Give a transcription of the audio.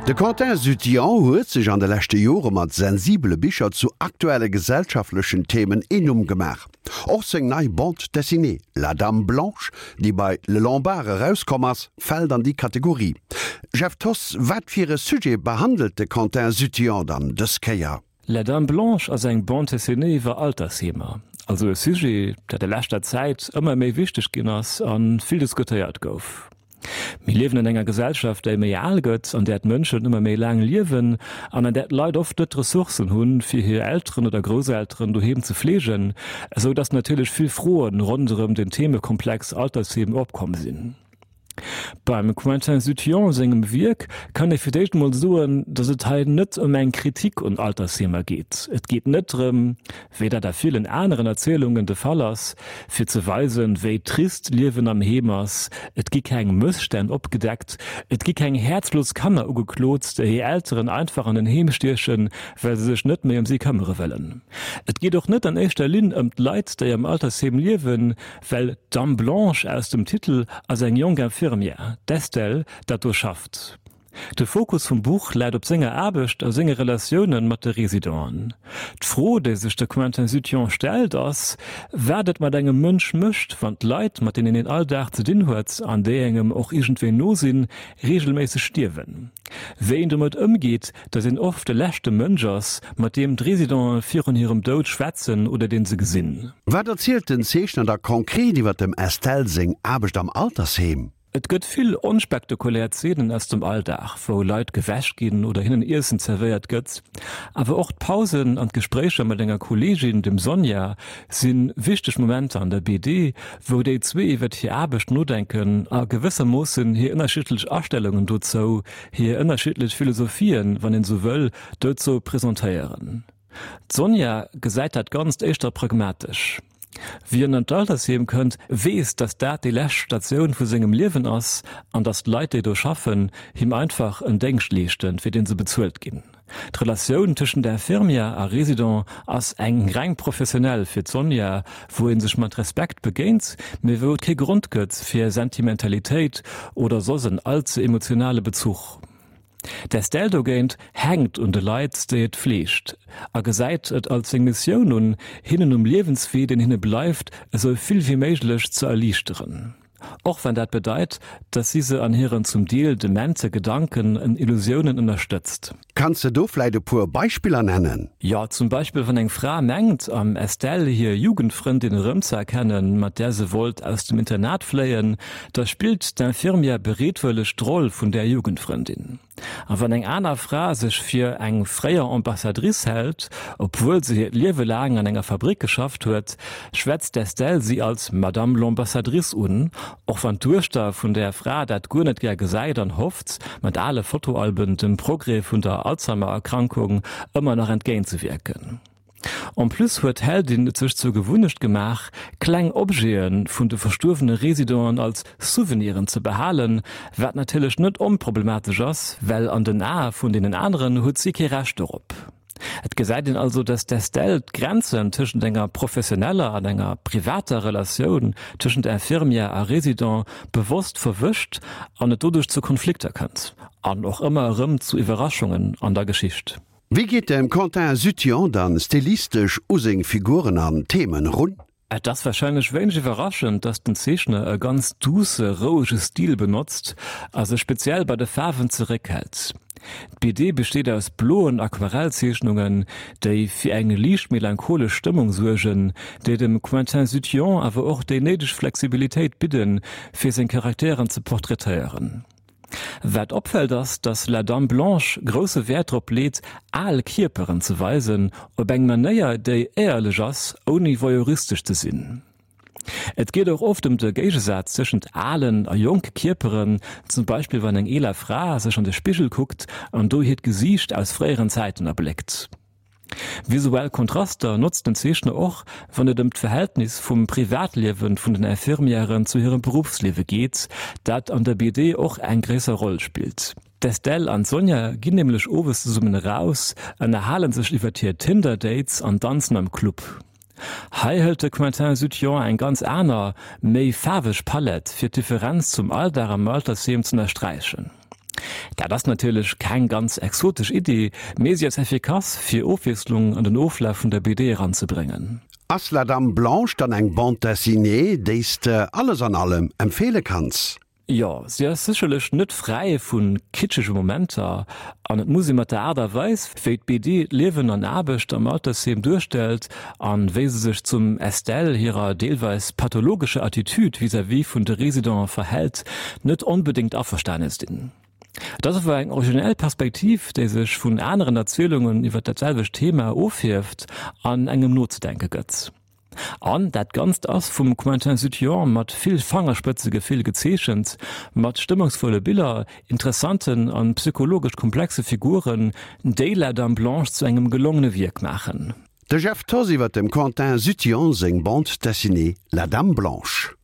De Quentin Zuthian huet sech an de leschte Jore mat sensibele Bicher zu aktuelle gesellschaftlechen Themen een Numm gemaach. Och seng nei Bande dessinée La Dame Blanche, déi bei Le Lombard erauskomm ass, fält an déi Kategorie. Jeff Thoss, wat fir e Sujet behandelt de Quentin Zuthian dann dës Kéier? La Dame Blanche ass eng Bande dessinée iwwer Altersheemer, also e Sujet, dat a leschter Zäit ëmmer méi wichteg ginn ass a vill diskutéiert gouf. Mir liewen an enger Gesellschaft, déi méi al gëtt, an där d'Mënschen ëmmer méi laang liewen an an där d'Leit oft net d'Ressourcen hunn, fir hir Elteren oder Grousselteren doheem ze fleegen, esou datt natierlech vill Froen ronderëm den Themekomplex Altersheem opkomm sinn. Beim Quentin Zuthion sengem Wierk kann ee fir d'éischt emol soen, datt et hei net ëm eng Kritik un Altersheemer geet. Et geet net drëm, wéi dat a villen aneren Erzielungen de Fall ass, fir ze weisen, wéi trist d'Liewen am Heem ass. Et gi keng Mësstänn opgedeckt, et gi keng häerzlos Kanner ugeklot, déi hir Elteren einfach an en Heem stiechen, well se sech net méi ëm si këmmere wëllen. Et geet och net an éischter Linn ëm d'Leit, déi am Altersheem liewen, Well d'Dame Blanche aus dem Titel ass eng jonk Infirmière, d'Estelle, dat do schafft. De Fokus vum Buch läit op senger Aarbecht a senge Relatioune mat de Residenten. D'Fro, déi sech de Quentin Zuthion stellt, ass, wat et mat engem Mënsch mécht, wann d'Leit, mat deenen een all Dag ze dinn huet an déi engem och iergendwéi no sinn, reegelméisseg stierwen. Wéi een domat ëmgeet, datt een oft de leschte Mënsch ass, mat deem d'Residenten virun hirem Doud schwätzen oder deen se gesinn. Wat erzielt den Zeechner da konkret iwwer dem Estelle seng Aarbecht am Altersheem? Et gëtt vill onspektakulär Zeenen aus dem Alldag, wou Leit gewäsch ginn oder hinnen Iessen zerwéiert gëtt. Awer och d'Pausen an d'Gespréicher mat enger Kolleegin, dem Sonja, si wichteg Momenter an der BD, wou déi zwee iwwert hir Aarbecht nodenken a gewëssermoossen hir ënnerschiddlech Astellungen dozou, hir ënnerschiddlech Philosophien, wann een esou wëll, dozou presentéieren. D'Sonja gesäit dat Ganzt éischter pragmatesch. Wien an d'Altersheem kënnt, weess, datt dat déi lescht Statioun vu sengem Liewen ass an datt d'Leit, déi do schaffen, him einfach en Déngscht leeschten, fir dee se bezuelt ginn. D'Relatioun tëschent Infirmière a Resident ass eng reng professionell fir d'Sonja, wou ee sech mat Respekt begéint, mee wou et kee Grond gëtt fir Sentimentalitéit oder soss en allze emotionale Bezuch. D'Estelle dogéint hänkt un de Leit, déi et fleegt, a gesäit et als seng Missioun un, hinnen um Liewenswee, deen hinne bleift, esou vill wéi méiglech ze erliichteren. Och wann dat bedeit, dass si se an hiren zum Deel demente Gedanken en Illusiounen ënnerstëtzt. Kanns de do vläit e puer Beispiller nennen? Jo, zum Beispill wann eng Fra mengt, am Estelle hir Jugendfrëndin erëmzeerkennen, mat där se wollt aus dem Internat fléien, da spillt d'Infirmière bereetwëlleg d'Roll vun där Jugendfrëndin. A wann eng aner Fra sech fir eng fréier Ambassadrice hält, obwuel se hiert Liewe laang an enger Fabrick geschafft huet, schwätzt d'Estelle si als Madame l'Ambassadrice un, och wann d'Duechter vun där Fra dat guer net gär gesäit an hofft, mat ale Fotoalben dem Progrès vun der Alzheimer-Erkrankung ëmmer nach entgéintzewierken. En plus huet d'Heldin et sech zur Gewunnecht gemaach, kleng Objete vun de verstuerwene Residenten als Souveniren ze behalen, wat natierlech net onproblematesch ass, well an den Ae vun deenen aneren huet si kee Recht dorop. Et gesäit een also, dass d'Estelle d'Grenzen tëschent enger professioneller an enger privater Relatioun tëschent Infirmière a Resident bewosst verwëscht an et doduerch zu Konflikter kënnt an och ëmmer erëm zu Iwwerraschungen an der Geschicht. Wéi geet de Quentin Zuthion dann stilistesch u seng Figuren an Themen run? Et ass warscheinlech wéineg iwwerraschend, dass den Zeechner e ganz duusse, rouege Stil benotzt a sech speziell bei de Faarwen zeréckhält. D'BD besteet aus bloen Aquarellzeechnungen, déi fir eng liicht melancholesch Stëmmung suergen, déi dem Quentin Zuthion awer och déi néideg Flexibilitéit bidden, fir seng Charakteren ze portraitéieren. Wat opfält ass, dass La Dame Blanche grousse Wäert drop leet, al Kierperen ze weisen, op eng Manéier, déi éierlech ass, ouni voyeuristesch ze sinn. Et geet och oft ëm de Géigesaz tëschent alen a jonke Kierperen, zum Beispill wann eng eeler Fra sech an de Spigel kuckt an do hiert Gesiicht aus fréieren Zäiten erbléckt. Visuell Kontraster notzt den Zeechner och, wann et ëm d'Verhältnis vum Privatliewe vun den Infirmièren zu hirem Beruffsliewe geet, dat an der BD och eng gréisser Roll spillt. D'Estelle an d'Sonja ginn nämlech owes zesummen eraus, ënnerhale sech iwwer hir Tinder-Dates an danzen am Club. Hei hëlt de Quentin Zuthion eng ganz aner, méi faarweg Palett, fir d'Differenz zum Alldag am Altersheem z'ënnersträichen. Dat ass natierlech keng ganz exotesch Iddi, mee si ass effikass, fir Ofwiesslung an den Oflaf vun der BD eranzebréngen. Ass La Dame Blanche dann eng Bande dessinée, déi s de alles an allem empfeele kanns? Jo, si ass sécherlech net fräi vu kitschege Momenter an et muss ee mat der Aart a Weis, wéi d'BD d'Liewen an Aarbecht am Altersheem duerstellt an wéi se sech zum Estelle hirer deelweis pathologescher Attitude vis-à-vis vun de Residenten verhält, net onbedéngt averstane sinn. Et ass awer eng originell Perspektiv, déi sech vun aneren Erzielungen iwwer dat selwecht Thema ofhieft an engem nozedenke gëtt. An dat Ganzt ass vum Quentin Zuttion mat vill Fangerspëtzegefill gezeechent, mat stëmmungsvolle Biller, interessanten an psychologesch komplexe Figuren, déi La Dame Blanche zu engem gelongene Wierk maachen. De Jeff Thoss iwwer dem Quentin Zuttion seng Bande dessinée La Dame Blanche.